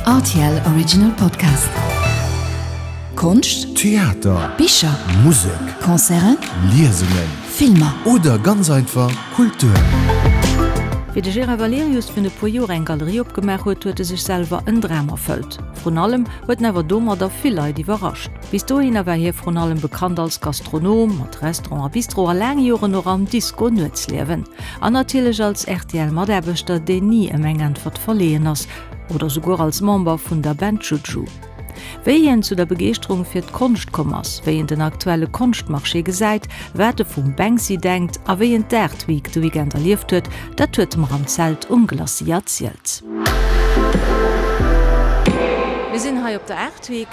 Rtl Original Podcast. Konscht, Theater, Bicher, Musek, Concerten, Liesungen, Filmer. Oder ganz einfach Kultur. Wéi de Gérard Valerius virun e puer Joer eng Galerie opgemaach huet, huet e sech selwer en Dram erfëllt. Vrun allem huet en awer domadder vill Leit iwwerrascht. Bis dohinner war hie vrun allem bekannt als Gastronom, mat Restaurant a Bistro a laang Joren och am Disco-Nuetsliewen. An natierlech als RTL-Mataarbechter, deen ni ëm eng Äntwert verleeën ass. Oder souguer als Member vun der Band Juju. Wéi hien zu der Begeeschterung fir d'Konscht komm ass, wéi en den aktuelle Konschtmarché gesäit, wat e vum Banksy denkt a wéi en d'Art Week de Weekend erlieft huet, dat huet e mer am Zelt um Glacis erzielt. Mir sinn hei op der Art Week.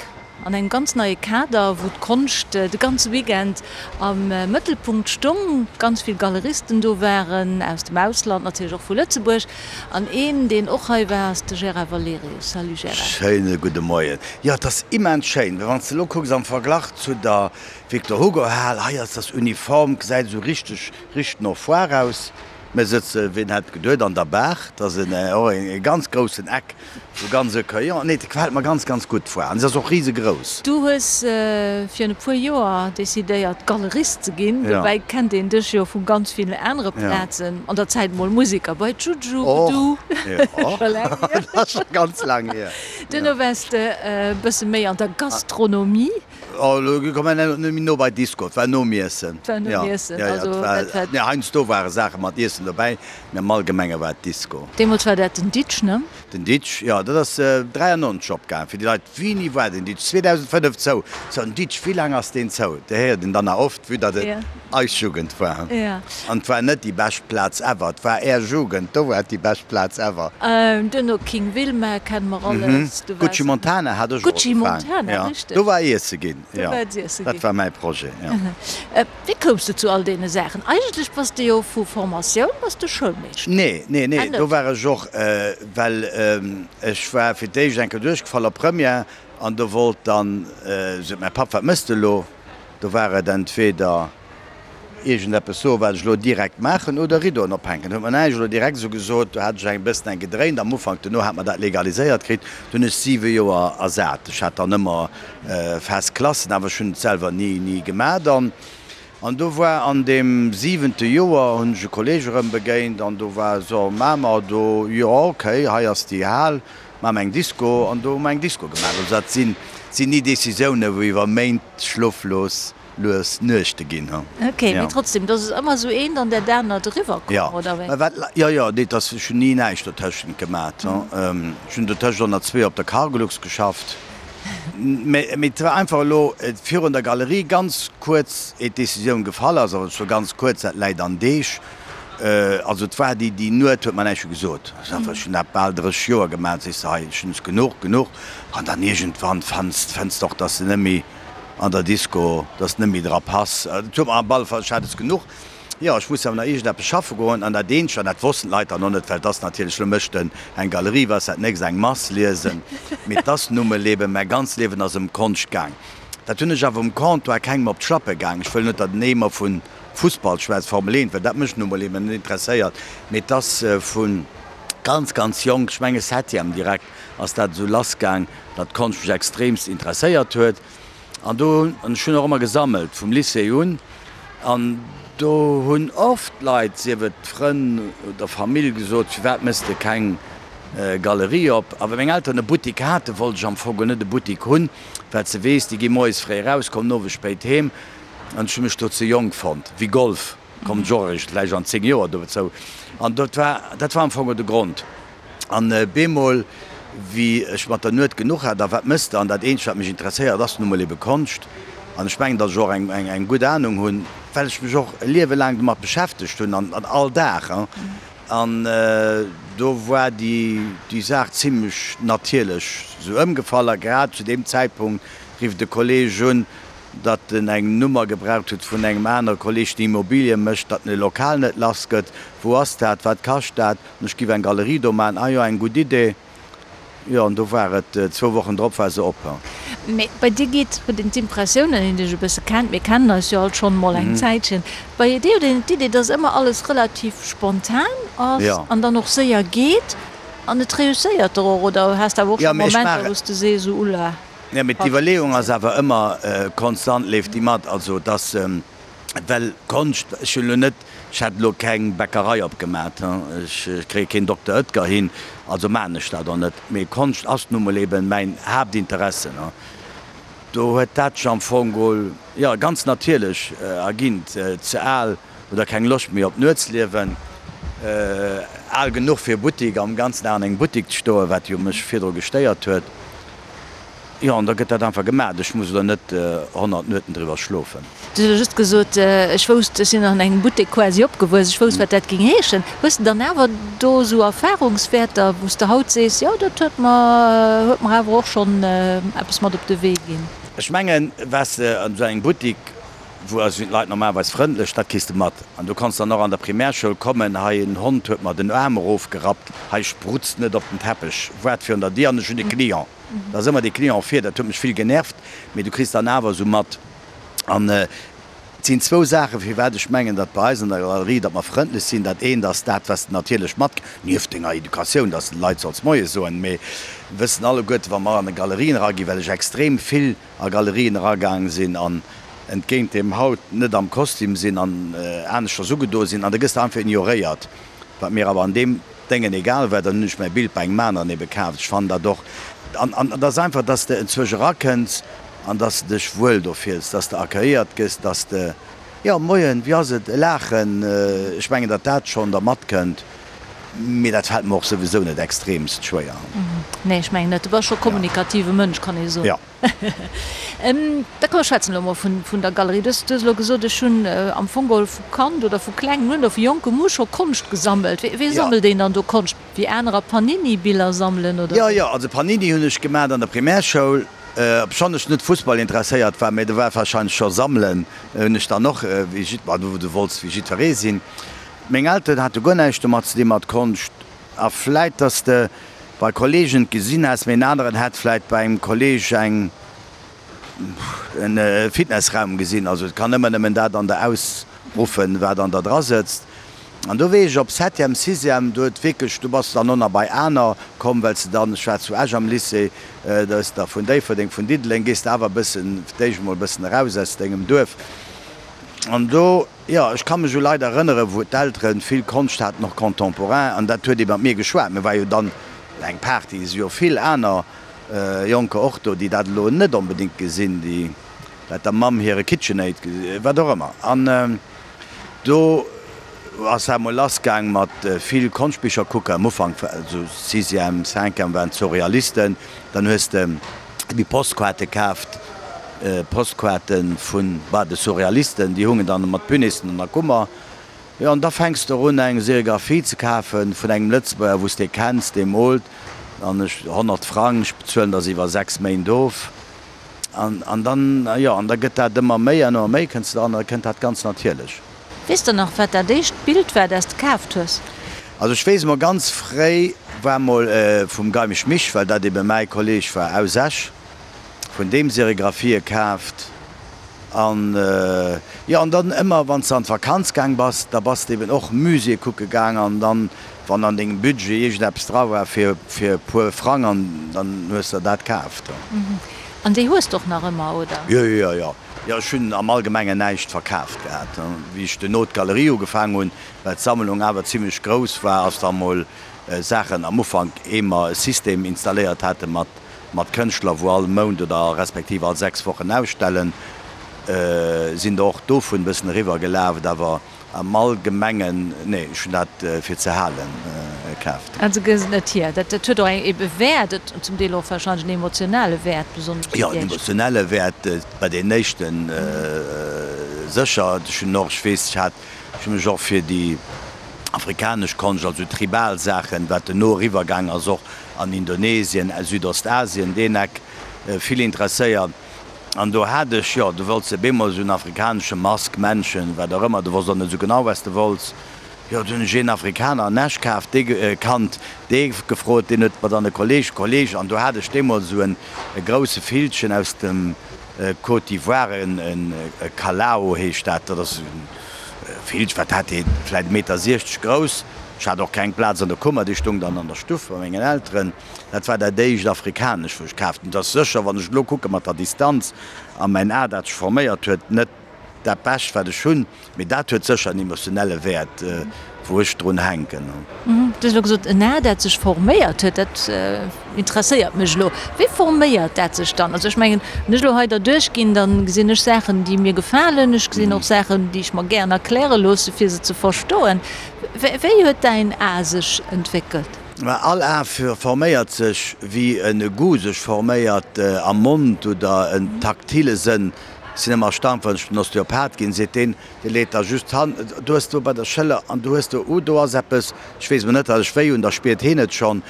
An engem ganz neie Kader, wou d'Konscht de ganze Weekend am Mëttelpunkt stong, ganz vill Galeristen do waren, aus dem Ausland, natierlech och vu Lëtzebuerg. An een, deen och hei war, ass de Gérard Valerius. Salut Gérard. Schéine gudde Moien. Jo, et ass immens schéin, well wann s de elo kucks am Verglach zu der Victor Hugo Hal, hei ass das uniform, gesäit esou richteg, richteg no Foire aus. Mir sëtze, wien hätt geduet, an der Baach. Dat ass en och e ganz groussen Eck, sou ganz accueillant. Nee, dat gefält mer ganz, ganz gutt, d'Foire. An se ass och risegrouss. Du hues virun e puer Joer decidéiert, Galerist ze ginn. Dobäi kennt een dech jo vu ganz villen anere Plazen. An der Zäit mol Museker bei Juju, du. Och, jo. Dat ass scho ganz laang hier. Duerno waars de e bësse méi an der Gastronomie. Oh, elo komme mer net méi no bei Disco, et war nom Iessen. Et war nom Iessen, also dat war. Nee, heiansdo ware Saache mat Iessen dobäi, mee am Allgemenge war et Disco. Deemools war dat den Ditsch, ne? Den Ditsch, jo, dat ass 93 opgaangen. Fir déi Leit, Wéini war den Ditsch? 2005 zou. Sou, den Ditsch, wéi laang ass deen zou? Dat héiert een dann nach oft, vue datt et eis Jugend war. An et war net déi bescht Plaz ever, et war Är Jugend, do war et déi bescht Plaz ever. Duerno King Wilma kenne mer alles. Du waars. Gucci Montana hat ech och Gucci ugefaang. Montana, Ja, richteg. do war iesse ginn, Do jo. war et iesse Dat ginn. war mäi Projet, jo. Wéi koums de zu all deene Saachen? Eigentlech bass de jo vu Formatioun bass de Schoulmeeschter. Nee, nee, nee, Ah, net? do war ech och, well ech war fir d'éischt eng Kéier duerchgefall op Première an do wollt dann, sot mäi Papp, wat mëss de elo? Do war et entweder iergendeppes soen, wat ech elo direkt maachen, oder Rideauen ophänken. Huet mer näischt elo direkt esou gesot. Do hat ech eng bëssen eng gedréint am Ufank. Duerno hat mer dat legaliséiert kritt. Do hunn ech siwe Joer ersat. Ech hat dann ëmmer fest Klassen, awer ech hunn et selwer ni, ni gemaach dann. An do war an deem siwente Joer, hunn ech e Kolleeg erëm begéint an do war esou, Maache mer do, jo okay, hei ass déi Hal, maache mer eng Disco. An do hu mer eng Disco gemaach. Also dat sinn, sinn ni Decisiounen, wou iwwer Méint schloflos lues Nuechte ginn, hu. Ok, mee trotzdem, dass et ëmmer esou eent an dat anert eriwwer komm, oder wéi? Jo, mä wat, jo, jo, nee, dass, ech hunn ni näischt dotëschent gemat, hu. Ech hunn dotëscht och nach zwee op der Cargolux geschafft. Mä, mee et war einfach elo virun der Galerie ganz kuerz, eet d'Decisioun gefall ass, awer zwar ganz kuerz, dat läit an Deeg, also et war déi, déi Nuet huet mer näischt gesot. Ech hunn dat bal 30 Joer gemat, sees de, hei, ech hunn es genuch, genuch. An dann iergendwann fanns, fënns de och, dass de net méi an der Disco, dass net méi dra pass. Et huet mer am alle Fall, ech hat es genuch. Jo, ech muss awer nach iergendeppes schaffe goen. An dat eenzegt, an dat wossten d'Leit dann och net, well et ass natierlech, elo mécht en eng Galerie, wat ass dat nächst, eng Mass liesen. Mee et ass nu mol eben, mäi ganzt Liewen ass ëm Konscht gaang. Dat hunn ech awer um Comptoir kengem op d'Schlappe gaang. Ech wëll net, datt en Eemer vu Fussball schwätzt, Formel 1, well dat mech nu mol eben net interesséiert. Mee et ass vu ganz, ganz jonk, ech menge Septième direkt, ass dat esou lassgaang, datt d'Konscht mech extremst interesséiert huet. An do hunn, an ech hunn och ëmmer gesammelt, vum Lycée un, an do hunn oft Leit, sief et Frënn oder Famill, gesot, firwat méchs de keng Galerie op? A well meng Elteren e Buttik haten, wollt ech am Fong geholl net e Buttik hunn, well s de weess, déi gi moies fréi eraus, kommen owes spéit heem, an ech hu mech do ze jonk fonnt. Wéi Golf kommen ech och eréischt vläicht an 10 Joer dozou. An dat war, dat war am Fong de Grond. An bemol, wéi ech mat der Nuet genuch hat, a wat mëss de? An dat eenzegt, wat mech interesséiert, ass nu mol ebe Konscht. An ech mengen, datt ech och eng gutt Anung hunn, well ech mech och e Liewe laang domat beschäftegt hunn, an all Dag. An do war déi Saach zimlech natierlech esou ëmgefall. A grad zu deem Zäitpunkt rifft e Kolleeg un, datt en eng Nummer gebraucht huet vun engem anere Kolleeg, deen Immobilie mécht, datt en e Lokal net lass gëtt. Wou ass dat? Wat kascht dat? An ech giff eng Galerie do maan. Ah jo, eng gutt Idee. Jo, an do war et, zwou Wochen drop war se op. Mee bei dir geet, huet een d'Impressioun, wann een dech e bësse kennt, mir kennen eis jo alt schonn emol eng Zäitchen, bei dir huet een d'Idee, dass ëmmer alles relativ spontan ass an dann och séier geet. An et reusséiert der och, oder has de awer och Jo, scho mee ech Momenter, maachen. wou s de sees, esou ulla, Jo, mee haut d'Iwwerleeung ass awer ëmmer konstant, leeft déi mat. Also et ass, well Konscht, ech hunn elo net, ech hätt elo keng Bäckerei opgemat, ech kréie keen Dokter Oetker hin, also maachen ech dat och net. Mee Konscht ass nu mol eben mäin Haaptinteresse. Do huet dat sech am Fong geholl, jo, ganz natierlech erginn. Ze al oder keng Loscht méi op d'Nuetsliewen, al genuch fir Buttik, am ganzen Dag an engem Buttik ze stoen, wat jo mech virdru gestéiert huet. Jo, an da gëtt dat einfach gemaach. Ech muss elo net 100 Nueten driwwer schlofen. Du hues elo just gesot, ech wousst, ech sinn an engem Buttek quasi opgewuess, ech wousst, wat dat géing heeschen. Hues de dann awer do esou Erfahrungswäerter, wou s de haut sees, jo, dat huet mer, huet mer awer och schonn eppes mat op de Wee ginn? Ech mengen, waars de an esou engem Buttik, wou also sinn d'Leit normalerweis frëndlech, dat kriss de mat. An du kanns dann och an der Primärschoul kommen, hei en Hond huet mer den Aarm erofgerappt, hei sprutzt net op den Teppech, waart virun der Dier an ech hunn e Client. Da ass ëmmer dee Client vir, dat huet mech vill genervt, mee du kriss dann awer esou mat. An et sinn zwou Saachen, firwat ech mengen, datt bei eis an der Galerie, datt mer frëndlech sinn. Dat eent ass dat, wat s de natierlech mat, nieft denger Educatioun, datt s de de Leit solls Moie soen, mee wëssen alleguerte, wa mer an de Galerien eraginn, well ech extrem vill a Galerien eragaang sinn an entgéint deem haut net am Kostüm sinn an aneschters ugedo sinn an da gëss de einfach ignoréiert, wat mir awer an deem Déngen egal war, dann hunn ech mäi Bild bei engem aneren ebe kaaft. Ech fannen dat och an an et ass einfach, dass de enzwousch erakënns an dass de dech wuel do fills, dass de accueilliert gëss, dass de, jo moien, wéi ass et, e Laachen, ech mengen, datt dat schonn da matkënnt, mee dat fält mer och souwisou net extremst schwéier. Nee, ech mengen net. Du bass scho kommunikative Mënsch, kann ee soen. Jo. Da komm mer schwätzen elo mol vun der Galerie. Du hues elo gesot, ech hunn am Fong geholl vu Kand oder vu klengem un oder vu jonkem u scho Konscht gesammelt. Wéi sammelt een dann do Konscht? Wéi anerer Panini-Biller sammelen oder Jo, wéi? jo, also Panini hunn ech gemaacht an der Primärschoul, obschonn ech net Fussball interesséiert war, mä do war warscheinlech scho sammelen hunn ech dann och, wéi jidd, ma du wollts wéi jiddweree sinn. Meng Elteren hate guer näischt domat ze di mat Konscht. A vläit, dass de bei Kollegen et gesinn häss, mee en aneren hätt vläit bei engem Kolleg eng en Fitnessraum gesinn. Also et kann ëmmer nëmmen dat an der ausruffen, wat an der dra sëtzt. An do wéi ech op Septième, Sixième, do huet wierklech, do bass de dann och nach bei aner komm, well s de dann, ech war zu Esch am Lycée, da hues de der vun Déifferdeng, vun Diddeleng, gees de awer e bëssen, fir d'éischt emol e bëssen eraus aus dengem Duerf. An do. Jo, ech ka mech u Leit erënneren, wou d'Elteren vill Konscht haten, och contemporain, an dat huet ee mat mir geschwat. Mir war jo dann eng Party, et si jo vill aner Jonker och do, déi dat elo net onbedéngt gesinn, déi dat der Mamm hire KitchenAid, wat och ëmmer. An do ass dat emol lassgaang mat vill Konschtbicher kucken. Am Ufank, esou Sixième, Cinquième, waren d'Surrealisten, dann hues de déi Postkaarte kaaft, Postkaarte vun, bah, de Surrealisten, déi hungen dann mat Punissen an der Kummer. Jo, an da fänks de erun eng Serigraphie ze kafe vun engem Lëtzebuerger, wou s de kenns, dee moolt, an ech, 100 Frang, ech bezuelen der se iwwer 6 Méint of. An, an dann, jo, an da gëtt dat ëmmer méi an ëmmer méi, kënns de dran, an da kënnt dat ganz natierlech. Weess de nach, wat dat éischt Bild war, dat s de kaaft hues? Also ech weess emol ganz fréi war mol vum Geimig Mich, well dat ebe mäi Kolleg war aus Esch, vun deem Serigraphië kaaft an jo an dann ëmmer wann s de an d'Vakanz gaang bass, da bass de eben och Muséeë kucke gaang an dann wann an dengem Budget iergendeppes dra war fir fir e puer Frang an dann hues der dat kaaft. An déi hues de och nach ëmmer, oder? Jo, jo, jo. Jo, ech hunn am Allgemengen näischt verkaaft gehat. Wéi ech duerno d'Galerie ugefaang hunn, well d'Sammlung awer zimlech grouss war, ass da mol Saachen am Ufank, ehe mer e System installéiert hate mat mat Kënschtler, wou all Mount oder respektiv all 6 Wochen ausstellen, sinn der och dovun e bëssen eriwwer gelaf. Awer Am Allgemengen, nee, ech hunn dat fir ze halen kaaft. Also gëss et net hier. Dat huet och eng ebe Wäert, et zum Deel och wahrscheinlech en emotionale Wäert, besonnesch fir Jo, en déi éischt. emotionelle Wäert bei deenen éischten sécher. Ech hunn och, ech weess, ech hat, ech hu mech och fir déi afrikanesch Konscht, also tribal Saachen, wat duerno eriwwer gaang ass, och an Indonesien, Südostasien, deen Eck, vill interesséiert. An do hat ech, jo, du wollts op eemol esou en afrikanesche Mask, Männchen, wat och ëmmer, du wosst och net esou genau, wat s de wollts. Jo, du hunn ech een Afrikaner an Esch kaaft, dee kannt, dee gefrot, deen huet mer dann e Kolleg, Kolleg, an do hat ech deemools esou en e grousse Villchen aus dem Côte d'Ivoire, en e Kalao heescht dat, dat ass e Villchen, wat hat dee, vläit e Meter 60 grouss. Ech hat och keng Plaz an der Kummer, déi stung dann an der Stuff bei mengen Elteren. Dat war dat éischt Afrikanescht, wou ech kaaft hunn. Et ass sécher, wann ech elo kucke mat der Distanz a mäin A, dat sech forméiert huet, net dat Bescht, wat ech hunn. Mee dat huet sécher en emotionelle Wäert, wou ech drun hänken. Du hues elo gesot, en A, dat sech forméiert huet. Dat interesséiert mech elo. Wéi forméiert dat sech dann? Also ech mengen, wann ech elo hei derduerch ginn, da gesinn ech Saachen, déi mir gefalen. Ech gesinn och Saachen, déi ech mer gären erkläre loosse, fir se ze verstoen. Wéi huet däin A sech entwéckelt? Mä all A forméiert sech, wéi e Goût sech forméiert am Mond oder en taktile Sënn. Ech sinn ëmmer erstaunt, wann ech den Osteopath ginn, seet deen, dee leet da just d'Hand, du hues do bei der Schëller an du hues do, uh, do ass eppes, ech weess emol net, datt ech wéi hunn, da spiert heen et schonn.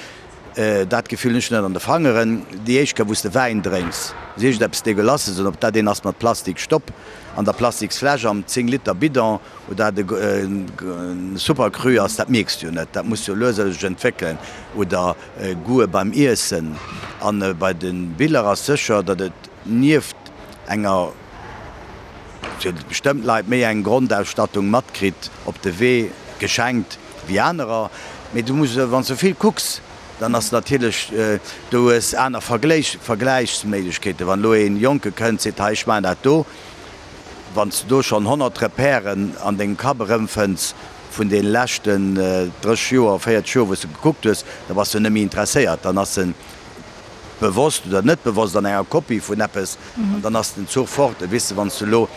Dat Gefill hunn ech net an de Fangeren. Déi éischt Kéier, wou s de Wäin drénks, ass iergendeppes Degueulasses, an ob dat een ass mat Plastikstopp an der Plastiksfläsch am 10 Liter Bidon oder dat e Super Cru ass, dat mierks de jo net. Dat muss jo lues a lues sech entwéckelen. Oder Goûte beim Iessen. An bei de Biller ass sécher, datt et nieft enger, fir bestëmmt Leit, méi eng Grondausstattung matkritt op de Wee geschenkt wéi anerer. Mee du muss, wann s du vill kucks, dann ass natierlech, du hues aner Vergläichsméiglechkeeten. Wann elo ee Jonke kënnt, seet, hei ech maachen dat do, wann s du do schonn 100 Repèren an dengem Kapp erëmfënns vun deene leschten 30 Joer, 40 Joer, wou s du gekuckt hues, da bass du net méi interesséiert. Dann ass en bewosst oder net bewosst an enger Kopie vun eppes an dann ass den Zuch fort. Et weess de, wann s de elo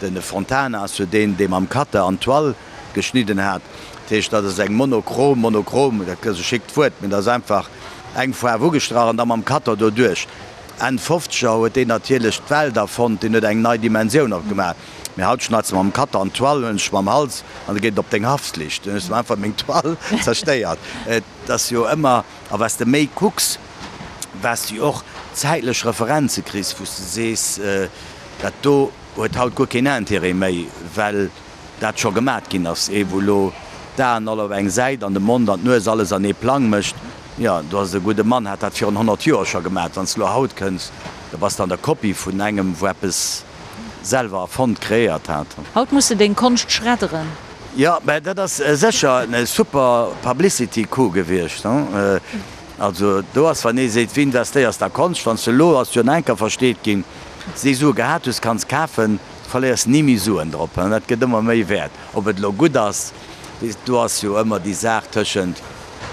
de Fontana ass jo deen, dee mam Cutter an d'Toile geschnidden hat, dat heescht, dat ass eng monochrom, monochrom, dat ass e schickt Wuert, mee dat ass einfach eng Faarf ugestrach an da mam Cutter doduerch. Enn Fofzeger huet deen natierlech d'Welt erfonnt, deen huet eng nei Dimensioun opgemaach. Mee haut schneids de mam Cutter an d'Toile, hunn ech mam Hals an da geet et op deng Haftflicht. Dann hues de einfach meng Toile zerstéiert. Et ass jo ëmmer. A wat s de méi kucks, wat s de och zäitlech Referenze kriss, wou s de sees, dat do huet haut guer keen Intérêt méi, well dat scho gemat ginn ass. Ee wou elo d'Aen all op eng Säit an de Mond an d'Nues alles an ee Plang mécht, jo, do ass e gudde Mann, hat dat virun 100 Joer scho gemat. Wann s de elo haut kënns, da bass de an der Kopie vun engem, wou eppes selwer erfonnt, kreéiert hat. Haut muss de deng Konscht schredderen. Jo, mä dat ass sécher e super Publicity Coup gewiescht. Also do ass, wann ee seet, wéi investéiers de a Konscht, wann s de elo, ass jo en enker versteet ginn, s déi Sue gehat hues, kanns kafen, verléiers ni méi Suen drop. Dat gëtt ëmmer méi wäert. Ob et elo gutt ass, do ass jo ëmmer déi Saach tëschent,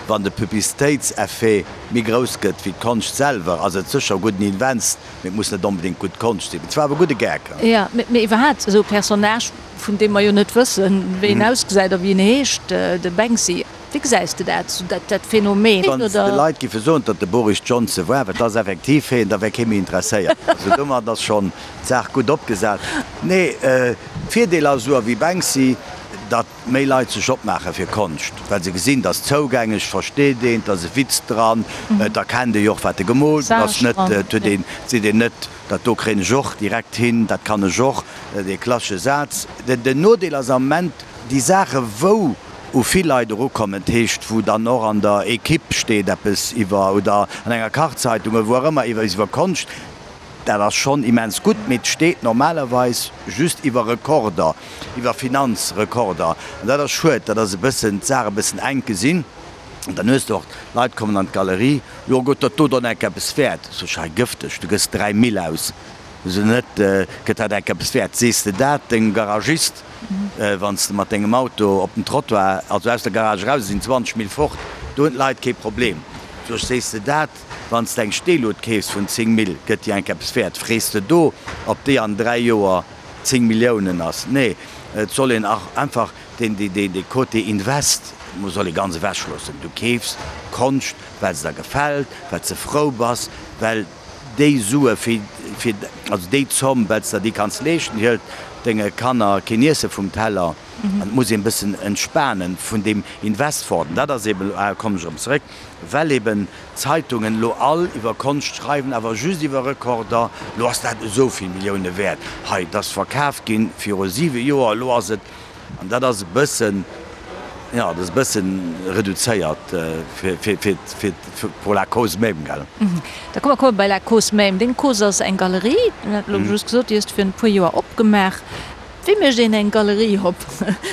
wann de Publicitéitseffet méi grouss gëtt wéi d'Konscht selwer, ass et sécher e gudden Invest, mee et muss net onbedéngt gutt Konscht sinn. Et war awer e gudde Gag. Jo, mee iwwerhaapt esou e Personnage, vun deem mer jo net wëssen, wéi en ausgesäit a wéi en heescht, de Banksy. Wéi gesäis de dat, sou dat dat Phänomen, Wann s de oder? Leit giffe soen, datt de Boris Johnson war, wat ass effektiv heen, da wär kee méi interesséiert. Also domat ass schonn d'Saach gutt opgesat. Nee, Virdeel ass esou ewéi Banksy, datt méi Leit sech opmaache fir Konscht, well se gesinn, et ass zougänglech, et versteet een, et ass e Witz dran, et erkennt ee jo och, wat e gemoolt huet, ass net, et huet een, et seet een net, Dat do kréien ech och direkt hin, dat kann ech och, dee klassesche Saz. Den Nodeel ass am Moment déi Saache wou u vill Leit erukommen, dat heescht wou dann och an der Equipe steet eppes iwwer oder an enger Kachzeitung oder wou och ëmmer iwwer iwwer Konscht, dat ass schonn immens gutt, mee et steet normalerweis just iwwer Rekorder, iwwer Finanzrekorder. An dat ass schued, dat ass e bëssen d'Saach e bëssen enk gesinn. An dann hues de och, d'Leit kommen an d'Galerie, jo gëtt dat do dann enk eppes wäert? Sot ech, hei gëfteg, du gëss 3 Mille aus, sou net, gëtt dat enk eppes wäert? Sees de dat dengem Garagist, wann s de mat dengem Auto op den Trottoir, also aus der Garage eraus, sinn 20 Mille fort, do hunn d'Leit kee Problem. Sot ech, sees de dat, wann s de eng Steelut keefs vun 10 Mille, gëtt déi enk eppes wäert? Frees de do, ob déi an 3 Joer 10 Milliounen ass? Nee, et soll een einfach Deen, dee Côté Invest soll ee ganz ewech loossen. Du keefs Konscht, well se der gefält, well s de frou bass, well déi Sue fir, fir, also déi Zomm, well s der déi kanns leeschten, hëlt denge Kanner keen Iesse vum Teller. An et muss een e bëssen entspanen vun deem Invest fort. An dat ass eeben, ah, kommen ech erëm zeréck, well eeben d'Zeitungen elo all iwwer Konscht schreiwen, awer just iwwer Rekorder, elo ass dat esou vill Millioune wäert, hei, et ass verkaf ginn viru siwe Joer, elo ass et. An dat ass e bëssen, jo, dat ass e bëssen reduzéiert fir, fir, fir, fir, pour la cause même, gell. Da komme mer komme bei la cause même. Deng Cause ass eng Galerie, du hat elo just gesot, déi hues de virun e puer Joer opgemaach. Wéi mécht een eng Galerie op?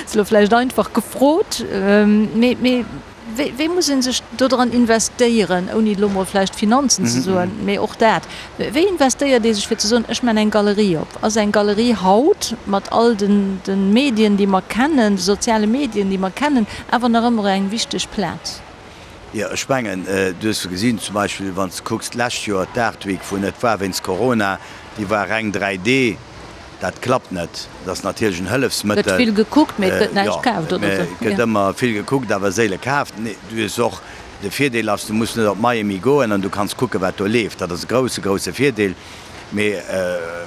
Ass elo vläicht einfach gefrot, mee mee wéi wéi muss ee sech dodran investéieren, ouni elo mol vläicht Finanzen ze soen, mee och dat, wéi investéiert ee sech fir ze soen, ech man eng Galerie op? Ass eng Galerie haut mat all den de Medien déi mer kennen, de soziale Medien déi mer kennen, awer nach ëmmer eng wichteg Plaz? Jo, ech mengen, du hues jo gesinn, zum Beispill wann s de kucks d'lescht Joer d'Art Week, wou net war wéinst Corona, déi war reng 3D. Dat klappt net. Dat ass natierlech en Hëllefsmëttel. Gëtt vill gekuckt, mee et gëtt näischt kaaft, oder esou. Jo, et gëtt ëmmer vill gekuckt, awer séile kaaft. Nee, du hues och, de Virdeel ass, du muss net op Miami goen an du kanns kucken, wat do leeft. Dat ass e grousse, grousse Virdeel. Mee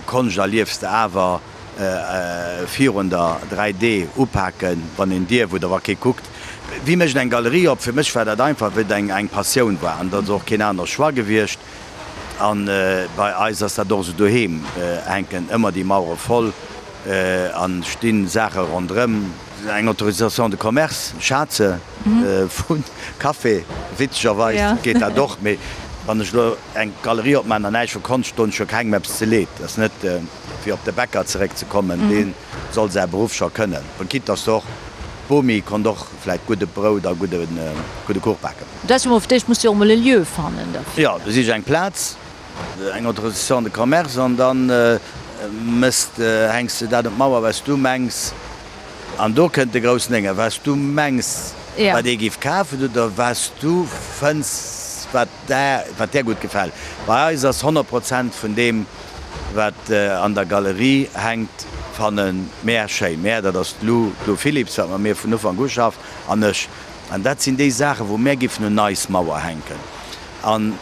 Konscht erliefs de awer virun der 3D upaken, wann een dierf oder wa kee kuckt. Wie mécht eng Galerie op? Fir mech war dat einfach, wéi et eng Passioun war an dat ass och keen anere Choix gewiescht. An bei eis ass dat och esou, doheem hänken ëmmer déi Mauere voll a sti Saache ronderëm. Eng Autorisation de commerce, Schaze vu Café, witzegerweis geet dat och, mee wann ech elo eng Galerie opmaachen an näischt vu Konscht, doen ech jo kengem eppes ze Leed. Dat ass net fir op de Bäcker zeréckzekommen, dee soll säi Beruff scho kënnen, quitte dass och d'Bomi konnt och vläicht gudde Brout a gudde Kuch baken. Dat ass jo mol, fir d'éischt muss de jo och mol e Lieu fannen derfir. Jo, du sich eng Plaz, eng Autorisation de commerce an dann mëss de, hänks de dat un d'Mauer, wat s du mengs. An do kënnt de groussen Dénge, wat s du mengs, wat ee giff kafen oder wat s du fënns, wat där, wat där gutt gefält. Bei eis ass 100 Prozent vun deem, wat an der Galerie hänkt, fanne mär schéin. Mär, dat ass d'Lou, d'Lou Philipps, wat mat mir vun Ufank u schafft, an ech. An dat sinn déi Saachen, wou mär giffen un eis Mauer hänken. An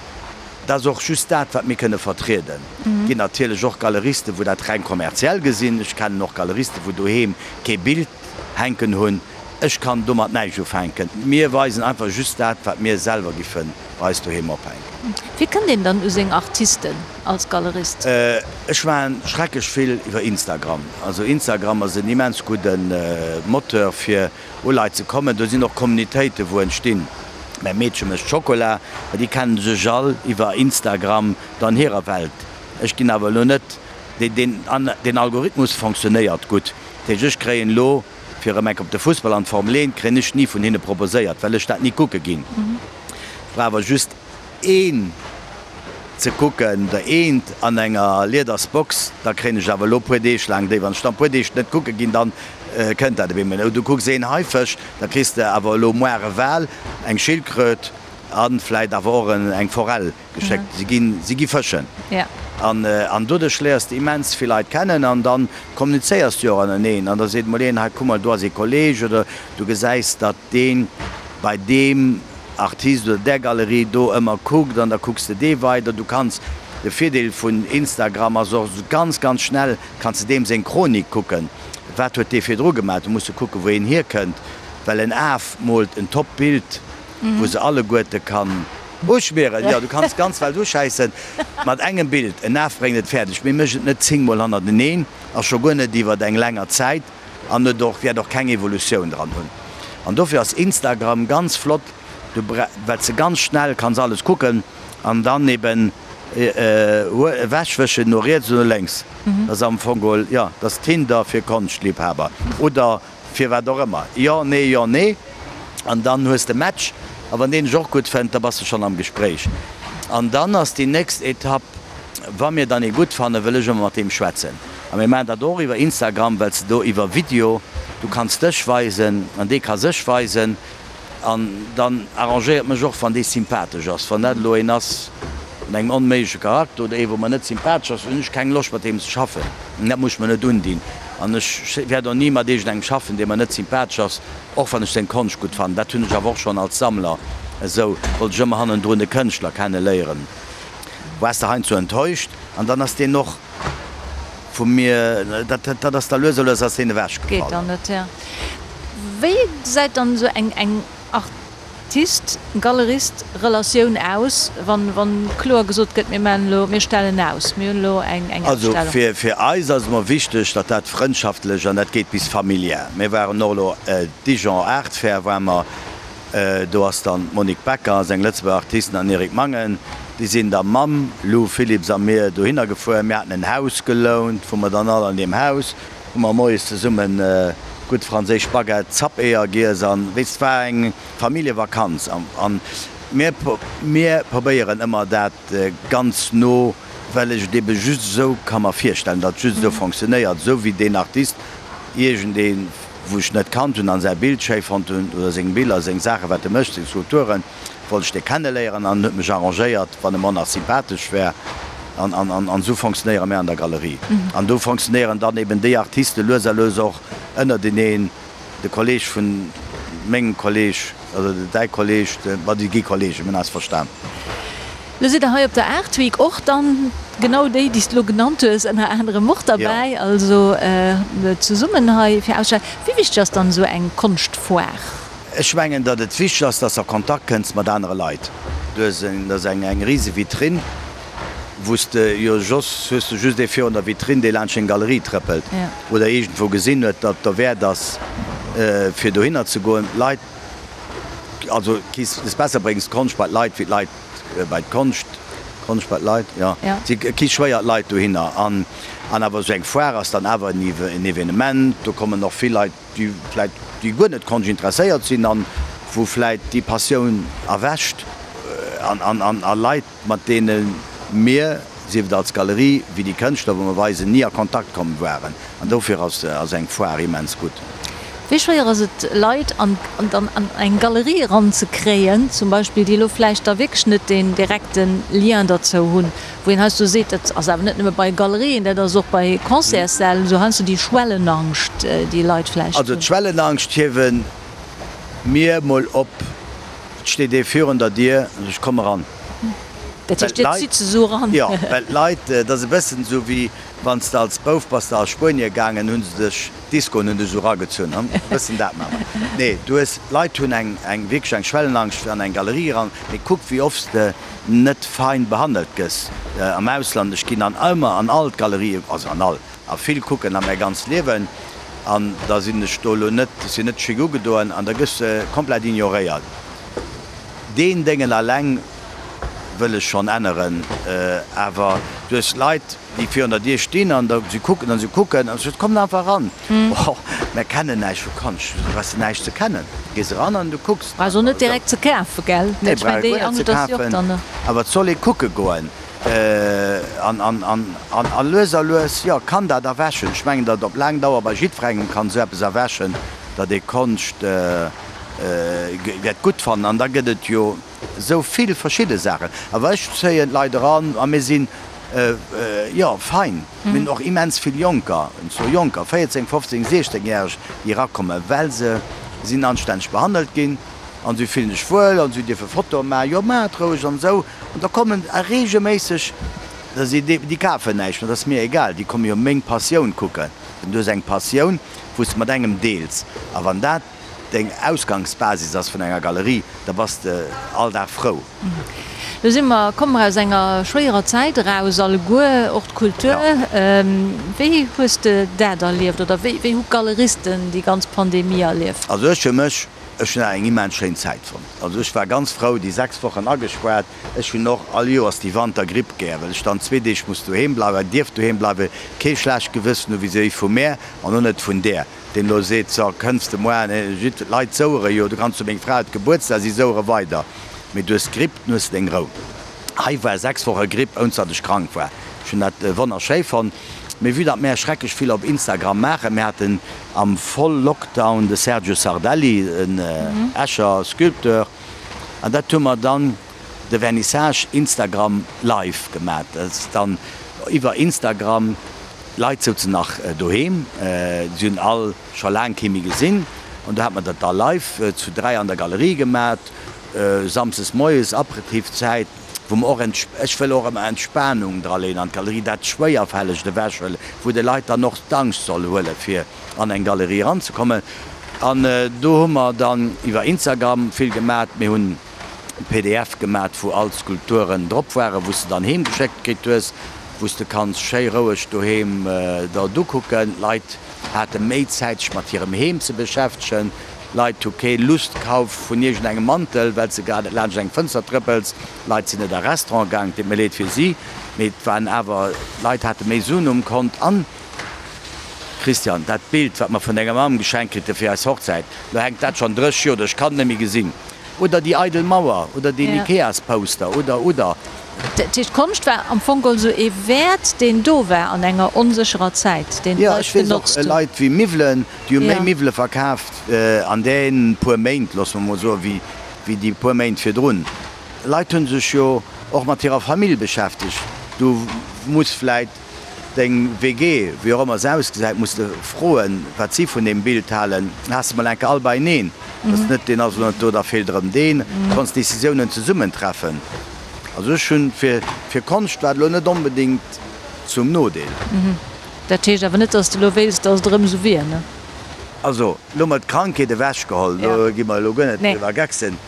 dat ass och just dat, wat mir kënne vertrieden. Et ginn natierlech och Galeristen, wou dat reng kommerziell gesinn. Ech kennen och Galeristen, wou doheem kee Bild hänken hunn. Ech kann domat näischt ufänken. Mir weisen einfach just dat, wat mir selwer giffe bei eis doheem ophänken. Wéi kënnt een dann u seng Artisten als Galerist? Ech maachen schrecklech vill iwwer Instagram. Also Instagram ass en immens gudde Moteur fir u Leit ze kommen. Do sinn och Communitéiten, wou entstinn, Mäi Meedche mécht Schokola, mä déi kennen sech all iwwer Instagram dann hirer Welt. Ech ginn awer elo net, deen Algorithmus fonctionnéiert gutt. Dat heescht, ech kréien elo, fir erëm enk op de Fussball an d'Formel 1, kréien ech ni vun hinne proposéiert, well ech dat ni kucke ginn. Ech brauch awer just een ze kucken, der eent an enger lieders Box, da kréien ech awer elo puer Deeg laang déi. Wann ech dann puer Deeg net kucke ginn, dann kënnt dat op eemol. Du kucks een Haifësch, da kriss de awer elo moar e Wal, eng Schildkröt a vläit awer och eng Forell geschéckt. Si ginn, si gi fëschen. An, an doduerch léiers de immens vill Leit kennen an dann kommunizéiers de jo och ënnereneen an da seet mol een, hei kuck mol, do ass ee Kolleg oder du gesäis, datt deen bei deem Artist oder där Galerie do ëmmer kuckt an da kucks de dee weider. Du kanns, de Virdeel vun Instagram ass och, ganz ganz schnell kanns de deem seng Chronik kucken, wat huet dee virdru gemaach. Du muss jo kucken, wou een hierkënnt, well en Af moolt en top Bild, wou se alleguerte kann uschmieren. Jo, du kanns d'ganz Welt uschäissen mat engem Bild. En Af bréngt et fäerdeg, mee mécht et net zéngmol hannerteneen a scho guer net iwwert eng länger Zäit. An et och wäert och keng Evolutioun dran hunn. An dofir ass Instagram ganz flott, du well s de ganz schnell kanns alles kucken an dann eben ewechwëschen no riets oder no lénks. Dat ass am Fong geholl, jo, dat ass Tinder fir Konschtliebhaber oder fir wat och ëmmer. Jo, nee, jo, nee. An dann hues de Match. A wann deen dech och gutt fënnt, da bass de schonn am Gespréich. An dann ass déi nächst Etapp, wa mir dann ee gutt fannen, wëll ech ëmmer mat deem schwätzen. A mir maachen dat och iwwer Instagram, well s de do iwwer Video, du kanns dech weisen an dee ka sech weisen. An dann arrangéiert mech och, wann dee sympathesch ass. Wann dat elo een ass mat engem onméigleche Charakter oder ee wou mer net sympathesch ass, hunn ech keng Loscht mat deem ze schaffen. Dat muss ech mer net undinn. An ech wäert och ni mat iergendengem schaffen, dee mer net sympathesch ass, och wann ech seng Konscht gutt fannen. Dat hunn ech awer och schonn als Sammler esou, wollt ech ëmmer hannendrun de Kënschtler kenne léieren. Waars de heiansdo enttäuscht an dann ass deen och vu mir, dat dat ass da lues a lues ass deen ewech gefall. Geet dann net, ja. Wéi gesäit dann esou eng eng Artist, Galerist Relatioun aus, wann wann kloer gesot gëtt, mir maachen elo, mir stellen aus, mir hunn elo eng eng Also Ausstellung? fir fir eis ass et emmer wichteg, datt dat frëndschaftlech an dat geet bis familiär. Mir waren och elo Dijon Art Fair ware mer, Do ass dann d'Monique Becker, ass eng Lëtzebuerger Artiste, an Eric Mangen. Déi sinn da mam Lou Philipps a mir dohinner gefuer. Mir haten en Haus gelount, wou mer dann all an deem Haus. Hu mer moies zesummen gutt franséisch Baguette, Zappeeër giess an weess, et war eng Familljevakanz an mir mir probéieren ëmmer dat ganz no, well ech et ebe just esou ka mer virstellen, datt et just esou fonctionnéiert, esou wéi deen Artist iergendee wou ech net kannt hunn an säi Bild schéi fonnt hunn oder seng Biller, seng Saachen wat e mécht, seng Skulpturen. Wollt ech dee kenneléieren an huet mech arrangéiert, wann e mer nach sympathesch wär. An, an, an, an esou fonctionnéiere mär an der Galerie. An do fonctionnéieren dann eben déi Artiste lues a lues och ënnerteneen, de Kolleg vun mengem Kolleg, also däi Kolleg, de, ma déi gi Kollegen, mir hunn eis verstan. Lo sidd der hei op der Art Week och dann genau déi, déi s de lo genannt hues, ënner anerem och derbäi, also zesummen hei fir ausstellen. Wéi wichteg ass dann esou eng Konschtfoire? Ech mengen, datt et wichteg ass, datt s de a Kontakt kënns mat anere Leit. Du hues en, dat ass eng eng rise Vitrinn, wou s de jo soss hues de just ee virun der Vitrinn, dee laanscht deng Galerie trëppelt oder iergendwou gesinn huet, datt et derwäert ass, fir dohinner ze goen. D'Leit, also kiss es besser bréngs d'Konscht bei d'Leit wéi d'Leit bei d'Konscht, d'Konscht bei d'Leit, jo, si ki schwéier d'Leit dohinner. An an awer esou eng Foire ass dann awer en Evenement, do kommen och vill Leit, déi vläit déi guer net Konscht interesséiert sinn an wou vläit déi Passioun erwächt an an an a Leit mat deene mir, sief et als Galerie wéi déi Kënschtler wou mer weisen, ni a Kontakt komm waren. An dofir ass ass eng Foire immens gutt. Wéi schwéier ass et Leit an dann an eng Galerie eranzekréien zum Beispill, déi elo vläicht da wierklech net deen direkte Lien derzou hunn? Wou een heiansdo seet, dat ass awer net nëmme bei Galerien, dat ass och bei Concertssäll esou, heiansdo déi Schwellenangscht, déi Leit vläicht Also hunn. d'Schwellenangscht hiewe mir mol op. Et steet ee virun der Dier an ech komm eran. Dat heescht, Dir zitt se esou eran? Jo, well d'Leit, dat ass e bëssen esou wéi wann s de als Bouf bass de a Spuenie gaangen, hu se dech, d'Discoen hunn dech esou eragezunn, e bëssen dat maache mer. Nee, du hues, d'Leit hunn eng, eng wierklech eng Schwellenangscht fir an eng Galerie eran. Mee kuck wéi oft s de net fein behandelt gëss am Ausland. Ech ginn an ëmmer an all d'Galerien, also an all, a vill kucken a mäi ganzt Liewen, an da sinn ech do elo net, ech sinn net chic ugedoen, an da gëss de komplett ignoréiert. Deen Déngen alleng wëll ech schonn änneren, awer du hues Leit, déi virun der Dier stinn an da si kucken an si kucken an ech sot, Kommt einfach eran. Oh, mär kennen näischt vu Konscht. Du brauchs näischt ze kennen. Du gees eran an du kucks. Brauchs och net direkt ze kafen, gell? Nee, brauch ee guer net ze kafen. Awer et soll ee kucke goen. An, an, an, an, a lues a lues, jo, kann dat erwächen. Ech mengen, datt op laang Dauer bei jiddwerengem kann esou eppes erwächen, datt ee Konscht wäert gutt fannen. An da gëtt et jo esou vill verschidde Saachen. Awer ech zéien d'Leit eran a mir sinn, jo, fein. Mir hunn och immens vill Jonker, und zwar Jonker, 14, 15, 16 järeg, déi erakommen, well se sinn anstänneg behandelt ginn an si fillen sech wuel an si dierfe Fotoe maachen, jo maacht roueg an esou. An da kommen reegelméisseg, da si déi, déi kafen näischt, mä dat ass mir egal, déi komme jo meng Passioun kucken. Du hues eng Passioun, wou s de mat engem deels a wann dat deng Ausgangsbasis ass vun enger Galerie, da bass de all Dag frou. Lo si mer, komme mer aus enger schwéierer Zäit eraus, alleguer, och d'Kultur. Wéi hues de dat erlieft oder wéi hu d'Galeristen déi ganz Pandemie erlieft? Also ech fir mech, ech hunn eng immens schéin Zäit fonnt. Also ech war ganz frou, déi 6 Wochen agespaart. Ech hunn och all Joers déi Wantergripp gär, well ech dann zwee Deeg muss doheem bleiwen, dierf doheem bleiwen, kee schlecht Gewëssen hu vis-à-vis vu mär an och net vun där. Deen elo seet, so, kënns de moar, jidd, d'Leit souere jo, du kanns jo, meng Fra huet Gebuertsdag, si souere weider, mee du hues d'Gripp, dann hues de deng Rou. Hei war 6 Woche Gripp, ounst datt ech krank war. Ech hunn dat wonnerschéi fonnt. Mee vue datt mär schrecklech vill op Instagram maachen, mir haten am Voll-Lockdown de Sergio Sardelli, en Escher Sculpteur, an dat hu mer dann de Vernissage Instagram live gemat. Dat ass dann iwwer Instagram. D'Leit souzen nach doheem, si hunn all scho laang kee méi gesinn an do hat mer dat da live zu 3 an der Galerie gemat, samsdes moies, Aperitifzäit, wou mer och, ech wëll och ëmmer Entspanung draleen an d'Galerie, dat Schwéierfällegt ewechhuelen, wou de Leit dann och d'Angscht soll huelen, fir an eng Galerie eranzekommen. An do hu mer dann iwwer Instagram vill gemat, mir hunn. Pdf gemat wou all d'Skulpturen drop waren, wou s de dann heem geschéckt kritt hues, wou s de kanns schéi roueg doheem der et ukucken. D'Leit hate méi Zäit sech mat hirem Heem ze beschäftegen. D'Leit hu kee Lust kaf vun iergend engem Mantel, well s de grad net laanscht eng Fënster trëppels. D'Leit sinn net a Restaurant gaang, et deet mir leed fir si, mee et waren awer, d'Leit hate méi Suen um Kont an. Christian, dat Bild, wat mer vun denger Mamm geschenkt kritt hu fir eis Hochzäit, lo hänkt dat schonn 30 Joer do, ech kann et net méi gesinn. Oder déi eidel Mauer oder deen Ikeas-Poster oder, oder. Dat heescht, d'Konscht war am Fong geholl esou ee Wäert, deen do war an enger onsécherer Zäit, deen Jo, ech d'Leit weess och, genotzt hunn. Leit wéi Miwwelen, déi hu méi Miwwele verkaaft an deenen puer Méint, loosse mer mol soen, wéi wéi déi puer Méint virdrun. Leit hu sech jo och mat hirer Famill beschäftegt. Du muss vläit deng WG, wéi och ëmmer se ausgesäit, muss de froen, wat si vun deem Bild halen. Has de mol enke all beieneen, dass net deen ass elo net do, da feelt erëm deen. Du kanns Decisiounen zesummen treffen. Also ech hunn fir fir Konscht war et elo net onbedéngt zum Nodeel. Dat heescht awer net, dass de elo wéilst, dass et erëm esou wier, ne? Also, elo mol d'Krankheet ewechgeholl, do gi mer elo guer net driwwer gecksen,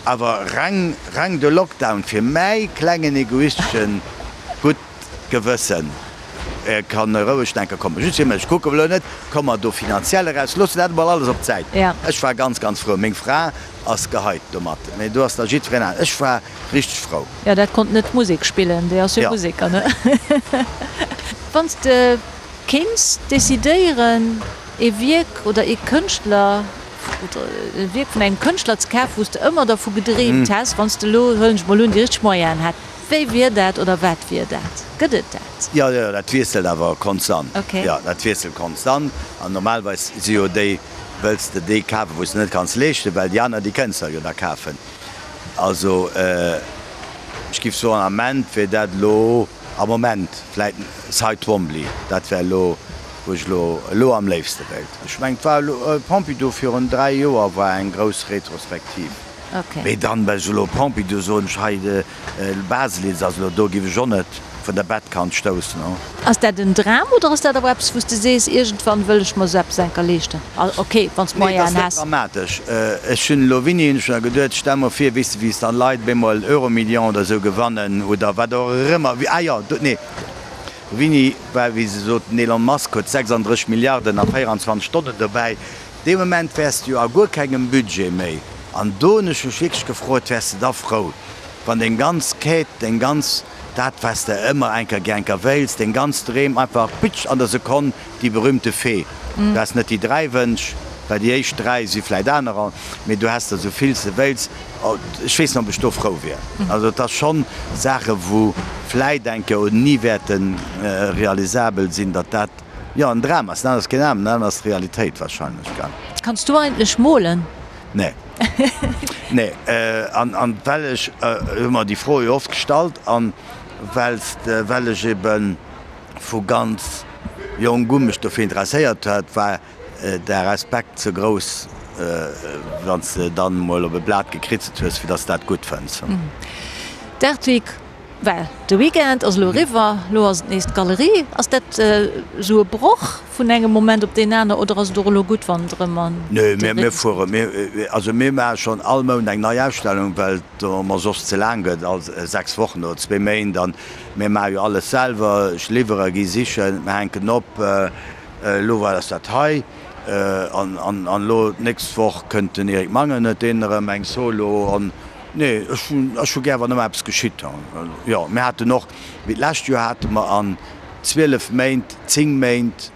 awer reng, reng de Lockdown fir mäi klengen egoisteschen gutt Gewëssen kann roueg denke kommen. Just fir mech, kucke elo net, komme mer do finanziell eraus, loosse dat emol alles op d'Säit. Ech war ganz, ganz frou. Meng Fra ass gehypt domat, mee do ass da jiddwereen anescht. Ech war richteg frou. Jo, dat konnt net Musek spillen, déi ass jo Museker, ne? Wann s de kéints decidéieren, ee Wierk oder ee Kënschtler oder e Wierk vun engem Kënschtler ze kafen, wou s de ëmmer dervu gedreemt häss, wann s de elo, huelen ech mol un, déi richteg Moyenen hätt, wéi wier dat oder wat wier dat? Gëtt et dat? Jo, jo, dat wiesselt awer konstant. Jo, dat wiesselt konstant. An normalerweis si jo déi, wëlls de déi kafen, wou s de net kanns leeschten, well déi aner, déi kënns de jo da kafen. Also ech giff soen, am Ament wier dat elo, am Moment vläit Cy Twombly, dat wär elo wou ech elo elo am léifste wéilt. Ech mengen et war elo Pompidou virun 3 Joer war eng grouss Retrospektiv. Mee dann well ech elo Pompidou soen, ech hei de Baselitz ass elo do, giff ech och net vun der Bettkant stoussen. Ass dat en Dram oder ass dat awer eppes wou s de sees, iergendwann wëll ech mer esou eppes enker leeschten? Ok, wann s Nee, et Moyenen ass net häss. dramatesch. Ech hunn elo wéini hunn ech mer geduet, stell mer vir, weess de wéi s dann Leit op eemol Euromillion oder esou gewannen oder wat och ëmmer, ah jo, do, nee, wéini war wéi se soten, Elon Musk huet 36 Milliarden a 24 Stonnen dobäi, dee Moment wäers de jo a guer kengem Budget méi. An do hunn ech mech wierklech gefrot, wäers de da frou, wann deng ganz Quête, deng ganz, dat wat s de ëmmer enker gär enker wéils, deng ganz Dreem einfach pitsch an der Sekonn, déi berühmte Fee. Du has net déi 3 Wënsch, well déi éischt 3 si vläit anerer, mee du has der esou vill s de wéils. Ech weess net, ob ech do frou wier. Also et ass schonn Saache wou vläit enker oder ni wäerte realisabel sinn, datt dat, jo, en Dram ass. Dat ass keen Dram, dat ass d'Realitéit wahrscheinlech, gell. Kanns du eigentlech molen? Nee. Nee. An, an well ech, hu mer déi Fro jo oft gestallt, an well s de, well ech ebe vu ganz jonk u mech dofir interesséiert hat, war de Respekt ze grouss, wann s de dann emol op e Blat gekritzelt hues, fir datt s dat gutt fënns. D'Art Week Well de Weekend ass elo eriwwer, elo ass et nees d'Galerie. Ass dat esou e Broch vun engem Moment op deen aner oder ass et och elo gutt, wann et erëm an Nö, de mir Rhythmus fuere, geet? mir, also mir maache schonn all Mount eng nei Ausstellung, well et mer soss ze laang gëtt, all 6 Wochen oder zwee Méint. An mir maache jo alles selwer, ech liwwere, gi sichen, mir hänken op. Elo war ass dat hei an an elo d'nächst Woch kënnt den Eric Mangen, huet deen erëm eng Solo an Nee, ech hunn, ech hu gär, wann ëmmer eppes geschitt. Jo, mir haten och, wéi d'lescht Joer hate mer an 12 Méint, 10 Méint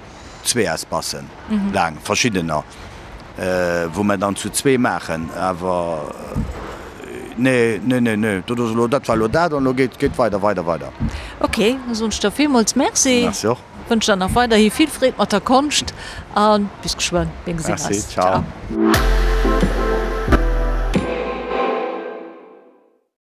zwee Espacen laang, verschiddener, wou mer dann zu zwee maachen. Awer nee, nee, nee, nee, dat ass elo, dat war elo dat an elo geet, geet weider, weider, weider. Ok, da soen ech der villmools Merci. Merci och. Wënsch der nach weiderhi vill Freed mat der Konscht a bis geschwënn. Mir gesinn Merci, eis. ciao. Ciao.